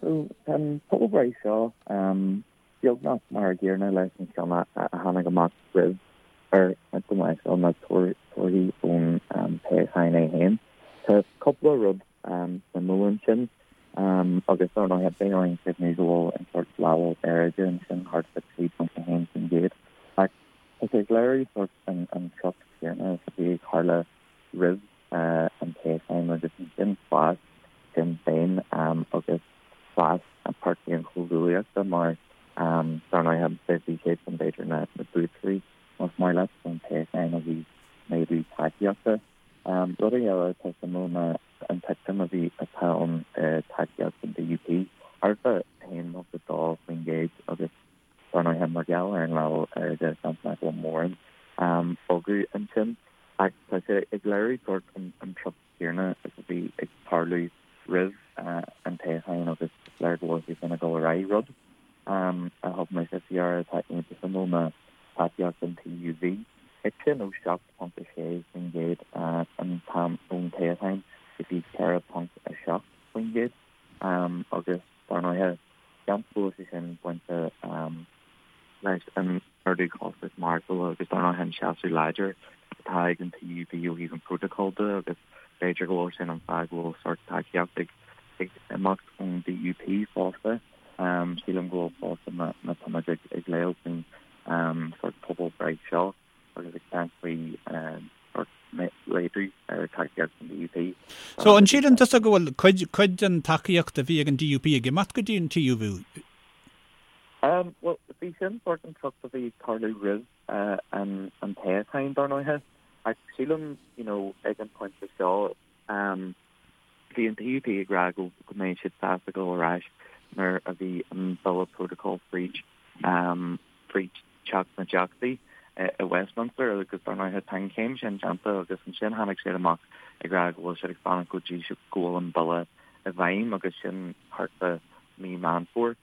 so tá an pobalbhreith seo beagnach mar a gcéanna leis an cheann a tháinig amach roimh ar go mbeadh seo na torthaí ón toghchán é féin. Tá cúpla rud suimiúil ansin agus dar ndóigh beidh orainn cuimhniú go bhfuil an sórt leibhéal aeráide ansin thart fá 3.1% ach tá sé ag léiriú sórt an treocht chéanna is a bhí ag tarlú roimh an toghchán agus ansin fás Sinn Féin agus fás an Páirtí an Chomhghuaillíochta mar dar ndóighe bhí siadsan b'fhéidir na buaiteoirí más maith leat ón toghchán ó thaobh méadú tacaíochta. Rud eile atá suimiúil ná an titim a bhí atá ann i tacaíocht an DUP, thart fá 1.2% agus Dar ndóighe, mar gheall ar an leibhéal aeráide, seans nach bhfuil mórán bogadh ansin. Ach tá sé ag léiriú sórt an treocht chéanna is a bhí ag tarlú roimh an toghchán agus is léir go bhfuil sé sin ag dul ar aghaidh. Rud a thug mise faoi deara atá iontach suimiúil ná tacaíocht an TUV. Thit sin ó 7.6% an t-am ón toghchán go dtí 4.7% agus dar ndóighe, Seans go bhfuil sé sin bainte leis an ardú costas maireachtála agus dar ndóigh an seasamh láidir atá ag an TUV ó thaobh an protocol de agus b'fhéidir go bhfuil sin an fáth go bhfuil sórt tacaíocht ag imeacht ón DUP fosta. Sílim go bhfuil fosta má táimid ag léamh faoin sórt pobalbhreith seo. agus ag caint faoi laghdú ar tacaíocht an DUP. So, an síleann tusa go bhfuil cuid, cuid den tacaíocht a bhí ag an DUP ag imeacht go dtí an TUV? Bhuel, bhí sin sórt an treocht a bhí ag tarlú roimh an an toghchán, dar ndóighe. Ach sílim, you know, ag an pointe seo, bhí an DUP ag rá go go mbeidh siad sásta dul ar ais nuair a bhí an bille protocol fríd, fríd Teach na dTeachtaí i Westminster agus dar ndóighe tá an chéim sin déanta agus ansin tháinig siad amach ag rá go bhfuil siad ag fanacht go dtí go bhfuil an bille i bhfeidhm agus sin thart fá mí Meán Fómhair.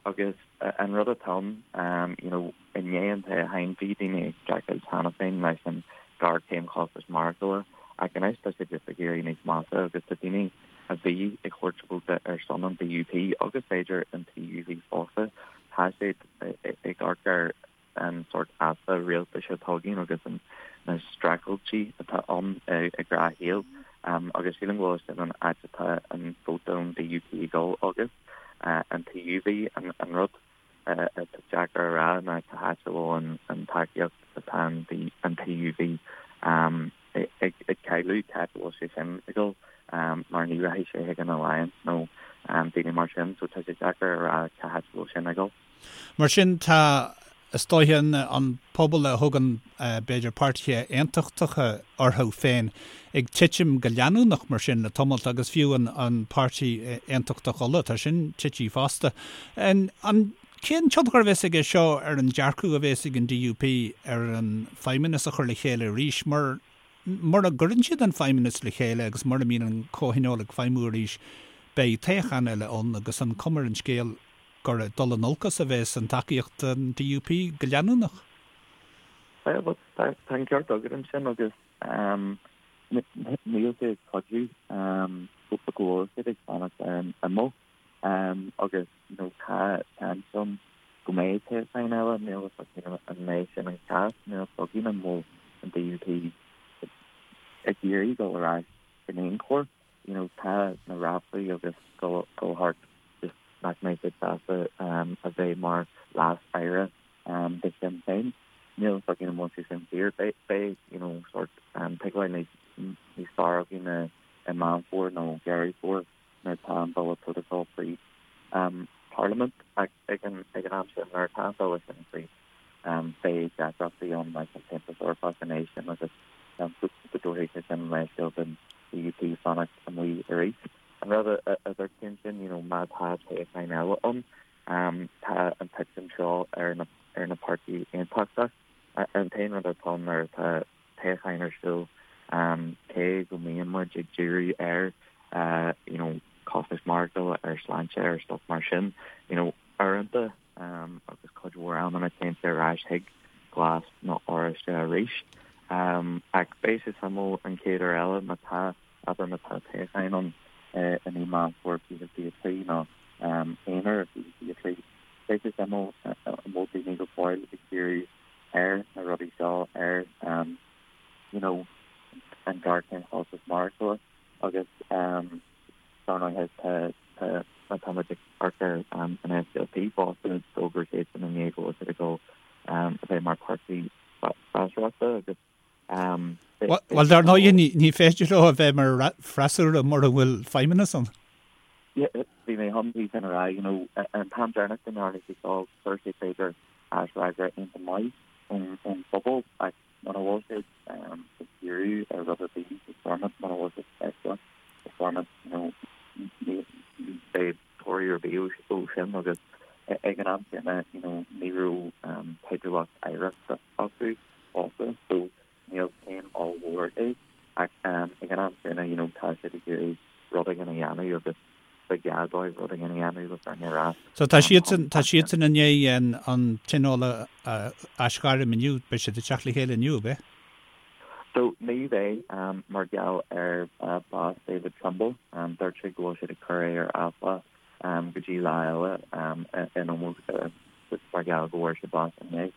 Agus an rud atá ann, you know, i ndiaidh an toghcháin bhí daoine ag streachailt cheana féin leis an ghéarchéim chostais maireachtála ach anois tá sé just ag éirí níos measa agus tá daoine a bhí ag thabhairt vóta ar son an DUP agus b'fhéidir an TUV fosta, tá siad ag amharc ar an sórt easpa rialtais atá againn agus na streachailtí atá ann i ngnáthshaol agus sílim go bhfuil sin an áit atá an vóta ón DUP ag dul agus an TUV. An rud atá deacair a rá ná cá háit a bhfuil an tacaíocht atá an TUV ag cailleadh, cá háit a bhfuil sé sin ag dul mar ní rachaidh sé chuig an Alliance nó daoine mar sin so tá sé deacair a rá cá háit a bhfuil sin ag dul. Mar sin tá, is dóiche, an pobal a thugann b'fhéidir páirtithe aontachtacha orthu féin ag titim go leanúnach mar sin le tamalt agus fiú an páirtí aontachtach Uladh, tá sin tite fosta. An cén tionchar a bheas aige seo ar an dearcadh a bheas ag an DUP ar an feidhmeannas a chur le chéile arís mar mura gcuireann siad an feidhmeannas le chéile agus mura mbíonn an comhthionól ag feidhmiú arís beidh toghchán eile ann agus an cuma ar an scéal gur ag dul in olcas a bheas an tacaíocht don DUP go leanúnach. Bhuel, tá an ceart agat ansin agus níl sé ag cuidiú go bhfuil siad ag fanacht ar an imeall agus you know tá seans ann go mbeidh toghchán eile, níl a fhios againn an mbeidh sin an cás, níl a fhios againn an bhfuil an DUP ag iarraidh dul ar ais in aon chor. You know tá na ráflaí agus dul thart just nach mbeidh siad sásta a bheith mar leas-aire de Shinn Féin. Níl a fhios againn an bhfuil sé sin fíor. Beidh you know sort tuigbheáil níos níos fearr againn i Meán Fómhair nó Deireadh Fómhair nuair atá an bille protocol fríd Parliament ach ag an ag an am sin nuair atá an bille sin fríd beidh deacrachtaí ann leis an tAontas Eorpach an éis sin agus go dtabharfaidh sé sin leithscéal don DUP fanacht amuigh arís. An rud a dúirt tú ansin, you know, má tá toghchán eile ann, tá an titim seo ar na ar na páirtí aontachtach. An t-aon rud atá ann nuair atá toghchán ar siúl, cé go mbíonn muid ag díriú ar you know, costas maireachtála, ar sláinte, ar stuff mar sin, you know, uaireanta agus cuid mhór amanna téann sé ar ais chuig glas nó oráiste arís. Ach beidh sé suimiúil an chéad uair eile má tá, abair má tá toghchán ann i mí Meán Fómhair 2023 nó. Eanáir 2023. Beidh sé suimiúil an bhfuil daoine go fóill ag díriú ar na rudaí seo, ar you know an ghéarchéim chostas maireachtála agus dar ndóighe tá tá má tá muid ag amharc ar an SDLP fosta d'fhógair siadsan inné go bhfuil siad ag dul a bheith mar páirtí freasúrachta agus Bhuel, dar ndóigh, ní féidir leo a bheith mar freasúra mura bhfuil feidhmeannas ann. Bhí mé chun é sin a rá, you know, an t-am deireanach go ndearna sé seo, fuair sé b'fhéidir aisfhreagra iontach maith ón phobal ach muna bhfuil siad ag díriú ar rud ar bith i Stormont, muna bhfuil siad feicthe i Stormont, you know, ní bheidh toradh ar bith ó sin agus ag an am céanna, you know, ní raibh teidealacht oidhreachta acu fosta so níl céim ollmhór é ach ag an am céanna you know tá siad ag iarraidh rud éigin a dhéanamh agus ba ghá dóibh rud éigin a dhéanamh le fírinne a rá. So tá siadsan tá siadsan i ndiaidh an an tionól a aisghairm inniu, beidh siad ag teacht le chéile inniu, ab ea? So ní bheidh mar gheall ar bás David Trimble, dúirt sé go bhfuil siad ag cur é ar athlá go dtí lá eile in ómós mar gheall go bhfuair sé bás inné.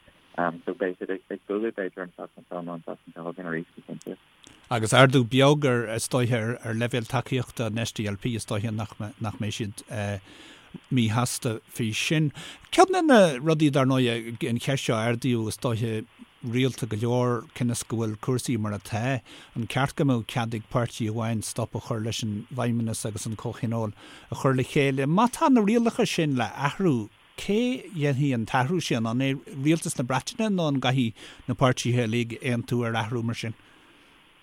So beidh siad ag bualadh b'fhéidir an tseachtain seo nó an tseachtain seo chugainn arís go cinnte. Agus ardú beag ar, is dóiche, ar leibhéal tacaíochta an SDLP, is dóiche nach nach mbeidh siad míshásta faoi sin. Ceann de na rudaí, dar ndóigh, an cheist seo a ardaíodh, is dóiche, rialta go leor, cionn is go bhfuil cúrsaí mar atá, an ceart go mbeadh cead ag páirtí amháin stop a chur leis an bhFeidhmeannas agus an Comhthionól a chur le chéile? Má tá na rialacha sin le athrú, Cé dhéanfaidh an t-athrú sin? An é Rialtas na Breataine nó an gcaithfidh na páirtithe uilig aontú ar athrú mar sin?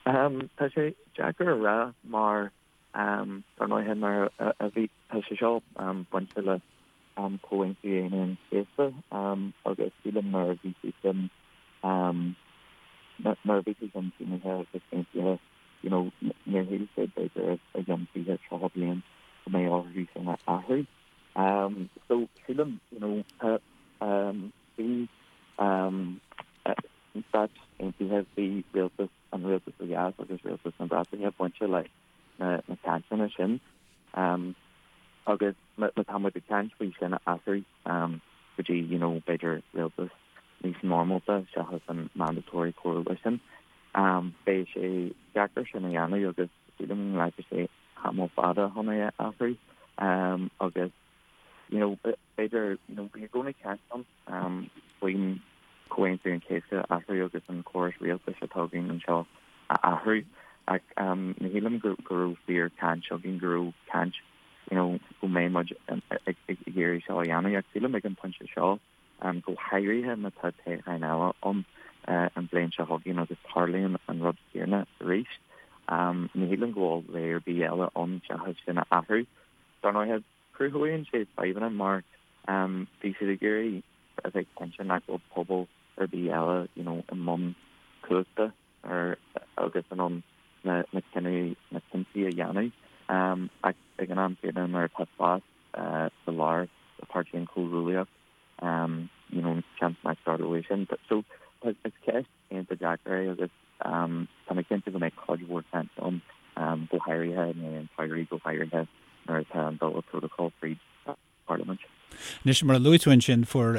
Tá sé deacair a rá mar dar ndóighe mar a bhí, tá sé seo bainte le Comhaontú Aoine an Chéasta agus sílim nuair a bhí sé sin nuair a bhí sé sin sínithe agus aontaithe you know níor shíl siad b'fhéidir i gceann 20, 30 bliain go mbeidh orthu sin a athrú. So sílim, you know, tá, bhí Stáit Aontaithe, bhí rialtas, an rialtas ó dheas agus rialtas na Breataine bainte le na cainteanna sin. Agus má tá muid ag caint faoi sin a athrú go dtí, you know, b'fhéidir rialtas níos normálta seachas an mandatory coalition, beidh sé deacair sin a dhéanamh agus sílim go nglacfaidh sé tamall fada chun é a athrú agus you know b'fhéidir you know bhí i gcónaí caint ann faoin Comhaontú an Chéasta a athrú agus an córas rialtais atá againn anseo a athrú ach ní shílim go go raibh fíor caint againn go raibh caint you know go mbeidh muid ag iarraidh seo a dhéanamh ach sílim ag an pointe seo go háirithe má tá toghchán eile ann an bhliain seo chugainn agus tarlaíonn an rud céanna arís. Ní shílim go bhfuil rogha ar bith eile ann seachas sin a athrú. Dar ndóighe, cruthaíonn sé fadhbanna mar bhí siad ag iarraidh a bheith cinnte nach bhfuil pobal ar bith eile you know i mbun cumhachta ar agus in ann na na cinntí a dhéanamh. Ach ag an am céanna nuair atá spás sa lár do Páirtí an Chomhghuaillíocht, you know, seans nach dtarlóidh sin. So is ceist iontach deacair é agus tá mé cinnte go mbeidh cuid mhór caint ann, go háirithe i ndiaidh an tsamhraidh, go háirithe nuair atá an Bille Protocol fríd an Pharlaimint. Anois, mar a luaigh tú ansin, fuair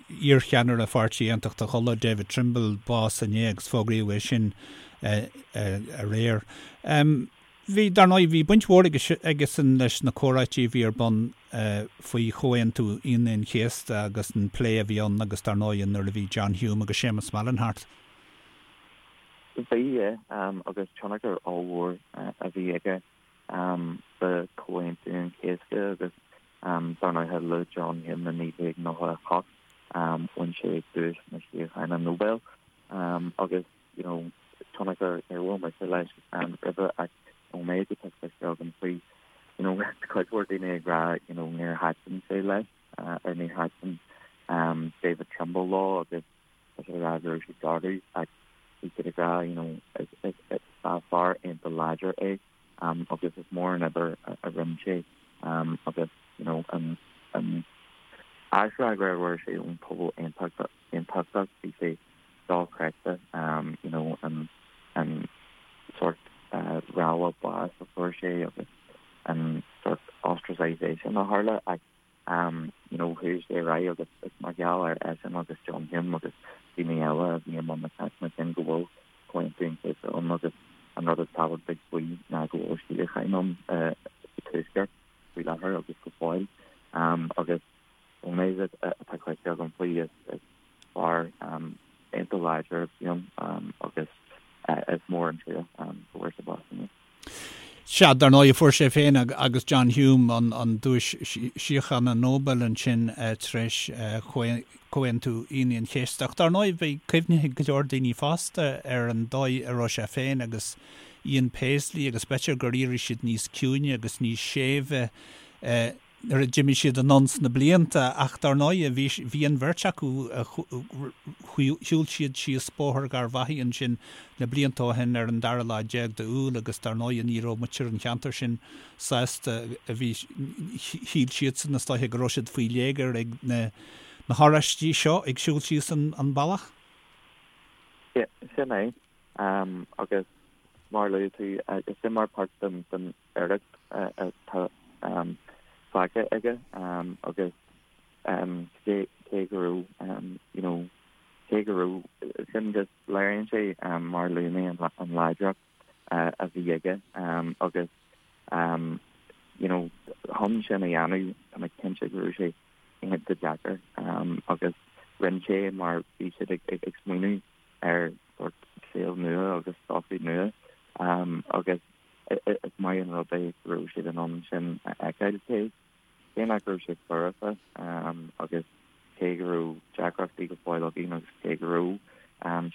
iarcheannaire Pháirtí Aontachtach Uladh, David Trimble, bás inné agus fógraíodh é sin aréir. Bhí, dar ndóigh, bhí baint mhór aigesan leis na comhráití a bhí ar bun faoi Chomhaontú Aoine an Chéasta agus an plé a bhí ann agus dar ndóigh nuair a bhí John Hume agus Séamus Mallon thart. Bhí, yeah, agus tionchar ollmhór a bhí aige sa Chomhaontú an Chéasta agus dar ndóigh le John Hume i 1998 bhain sé duais na síochána Nobel agus you know, tionchar níor bhuail mise leis roimhe ach ón méid atá cloiste agam faoi, you know, cuid mhór daoine ag rá, you know, níor thaitin sé leis or níor thaitin David Trimble leo agus tá siad ag rá go raibh siad garbh ach bhí siad ag rá, you know, is fear iontach láidir é agus is mór an obair a rinne sé agus, you know, an an aisfhreagra a fuair sé ón pobal aontachtach bhí sé dochreidte you know an an sort rabhadh báis a fuair sé agus an sort ostracization a tharla ach. You know, chuaigh sé ar aghaidh agus is mar gheall ar eisean agus John Hume agus daoine eile a bhí i mbun na cainteanna sin go bhfuil Comhaontú an Chéasta ann agus an rud is tábhachtaigh faoi ná go bhfuil síocháin ann sa Tuaisceart faoi láthair agus go fóill. Agus ón méid atá cloiste agam faoi is fear iontach láidir a bhí ann agus is mór an trua go bhfuair sé bás inniu. Sea, dar ndóigh, fuair sé féin agus John Hume an Duais Síochána Nobel ansin tar éis Chomhaontú Aoine an Chéasta. Ach dar ndóigh, beidh cuimhne ag go leor daoine fosta ar an dóigh a raibh sé féin agus Ian Paisley agus b'fhéidir gur éirigh siad níos ciúine agus níos séimhe nuair a d'imigh siad anonn sna blianta ach dar ndóigh bhí bhí an bheirt acu shiúil siad síos Bóthar Gharbhachaidh ansin na blianta ó shin ar an dara lá déag d'Iúil agus dar ndóigh ní raibh muintir an cheantair sin sásta a bhí shíl siadsan is dóiche go raibh siad faoi léigear ag na na hOráistigh seo ag siúl síos an an bealach. Yeah, sin é. Um, agus mar a luaigh tú, is sin mar páirt den den oidhreacht atá fágtha aige agus cé go raibh you know cé go raibh sin just léiríonn sé mar a luaigh mé an láidreacht a bhí aige agus you know chun sin a dhéanamh tá mé cinnte go raibh sé iontach deacair agus rinne sé mar bhí siad ag smaoineamh ar sort saol nua agus sochaí nua agus Is maith an rud é go raibh siad in ann sin a fheiceáil, cé cé nach raibh sé foirfe agus cé go raibh deacrachtaí go fóill againn agus cé go raibh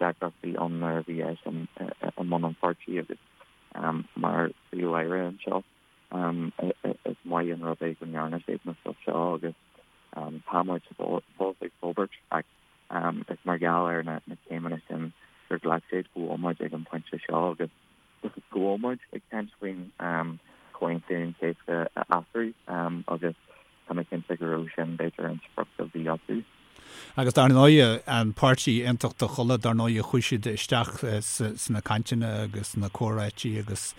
deacrachtaí ann nuair a bhí eisean i mbun an pháirtí agus mar Phríomh-Aire anseo. Is maith an rud é go ndearna siad na stuff seo agus tá muid fós ag forbairt ach is mar gheall ar na céimeanna sin gur ghlac siad go bhfuil muid ag an bpointe seo agus go bhfuil muid ag caint faoin Chomhaontú an Chéasta a athrú agus tá mé cinnte go raibh sin b'fhéidir an sprioc a bhí acu. Agus dar ndóigh, an Páirtí Aontachtach Uladh, dar ndóigh, chuaigh siad isteach sna cainteanna agus sna comhráití agus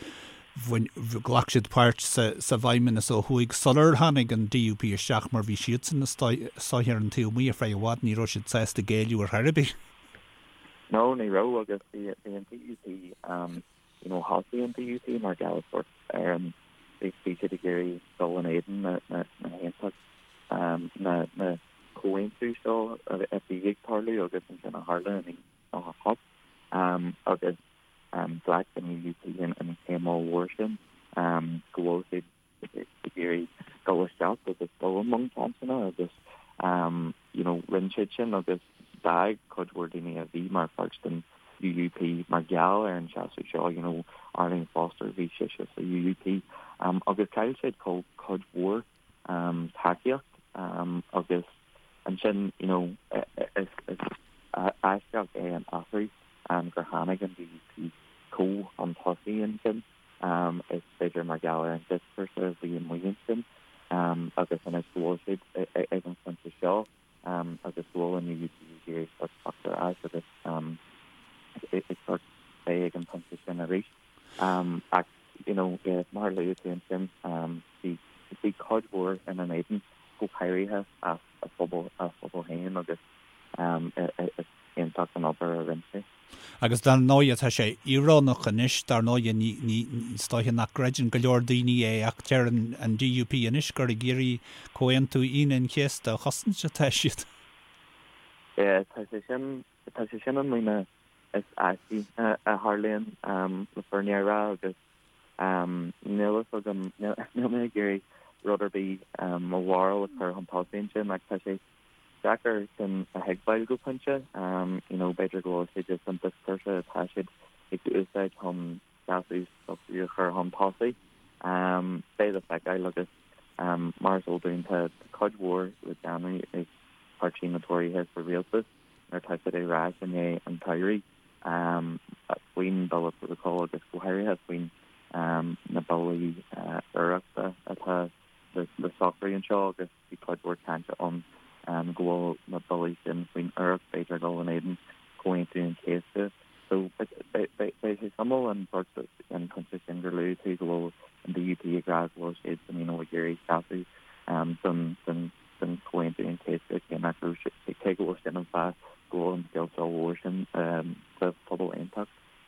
bhain, ghlac siad páirt sa bhFeidhmeannas ó thuaidh sular tháinig an DUP isteach mar bhí siadsan is dóiche ar an taobh amuigh ar feadh i bhfad, ní raibh siad sásta géilleadh ar chor ar bith. No, ní raibh agus bhí bhí an DUP you know thosaigh an DUP mar gheall sort ar an bhí bhí siad ag iarraidh dul in éadan na na na haontacht na na comhaontú seo a bhí ag tarlú agus ansin a tharla in 98 agus ghlac an UUP an an chéim ollmhór sin go bhfuil siad ag iarraidh dul isteach agus dul i mbun cainteanna agus you know rinne siad sin agus d'fhág cuid mhór daoine a bhí mar pháirt den UUP mar gheall ar an seasamh seo, you know Arlene Foster bhí sise sa UUP agus chaill siad cuid mhór tacaíocht agus ansin you know is aisteach é an athrú gur tháinig an DUP chomh chun tosaigh ansin. Is b'fhéidir mar gheall ar an dioscúrsa a bhí amuigh ansin agus anois go bhfuil siad ag an phointe seo agus go bhfuil an UUP ag iarraidh sort teacht ar ais agus ag sort bheith ag an phointe sin arís. Ach you know mar a luaigh tú ansin bhí bhí cuid mhór ina n-éadan go háirithe as a phobal a phobal féin agus is iontach an obair a rinne sé. Agus dar ndóighe tá sé íorónach anois, dar ndóighe ní, ní, is dóiche nach gcreideann go leor daoine é ach deir an, an DUP anois gur ag iarraidh Comhaontú Aoine an Chéasta a chosaint atá siad. Yeah, tá sé sin, tá sé sin an líne is aistí a tharlaíonn le fírinne a rá agus níl fhios agam, níl mé ag iarraidh rud ar bith mo bharúil a chur chun tosaigh ansin ach tá sé deacair sin a thuigbheáil go pointe. You know, b'fhéidir go bhfuil sé just an dioscúrsa atá siad ag úsáid chun seasamh s'acu a chur chun tosaigh. Beidh le feiceáil agus mar is eol dúinn tá cuid mhór le déanamh ag páirtí na Tóraithe sa rialtas nuair atá siad ar ais i ndiaidh an tsamhraidh faoin Bille Prótacail agus go háirithe faoin na billí oidhreachta atá le socrú anseo agus Bhí cuid mhór cainte ann go bhfuil na billí sin faoin oidhreacht, b'fhéidir, ag dul in éadan Chomhaontú an Chéasta. So beidh sé suimiúil an sort an pointe sin gur luaigh tú go bhfuil an DUP ag rá go bhfuil siad you know ag iarraidh seasamh. don don Chomhaontú an Chéasta cé nach raibh sé, cé go bhfuil sin an fáth go bhfuil an scéal seo mhór sin sa.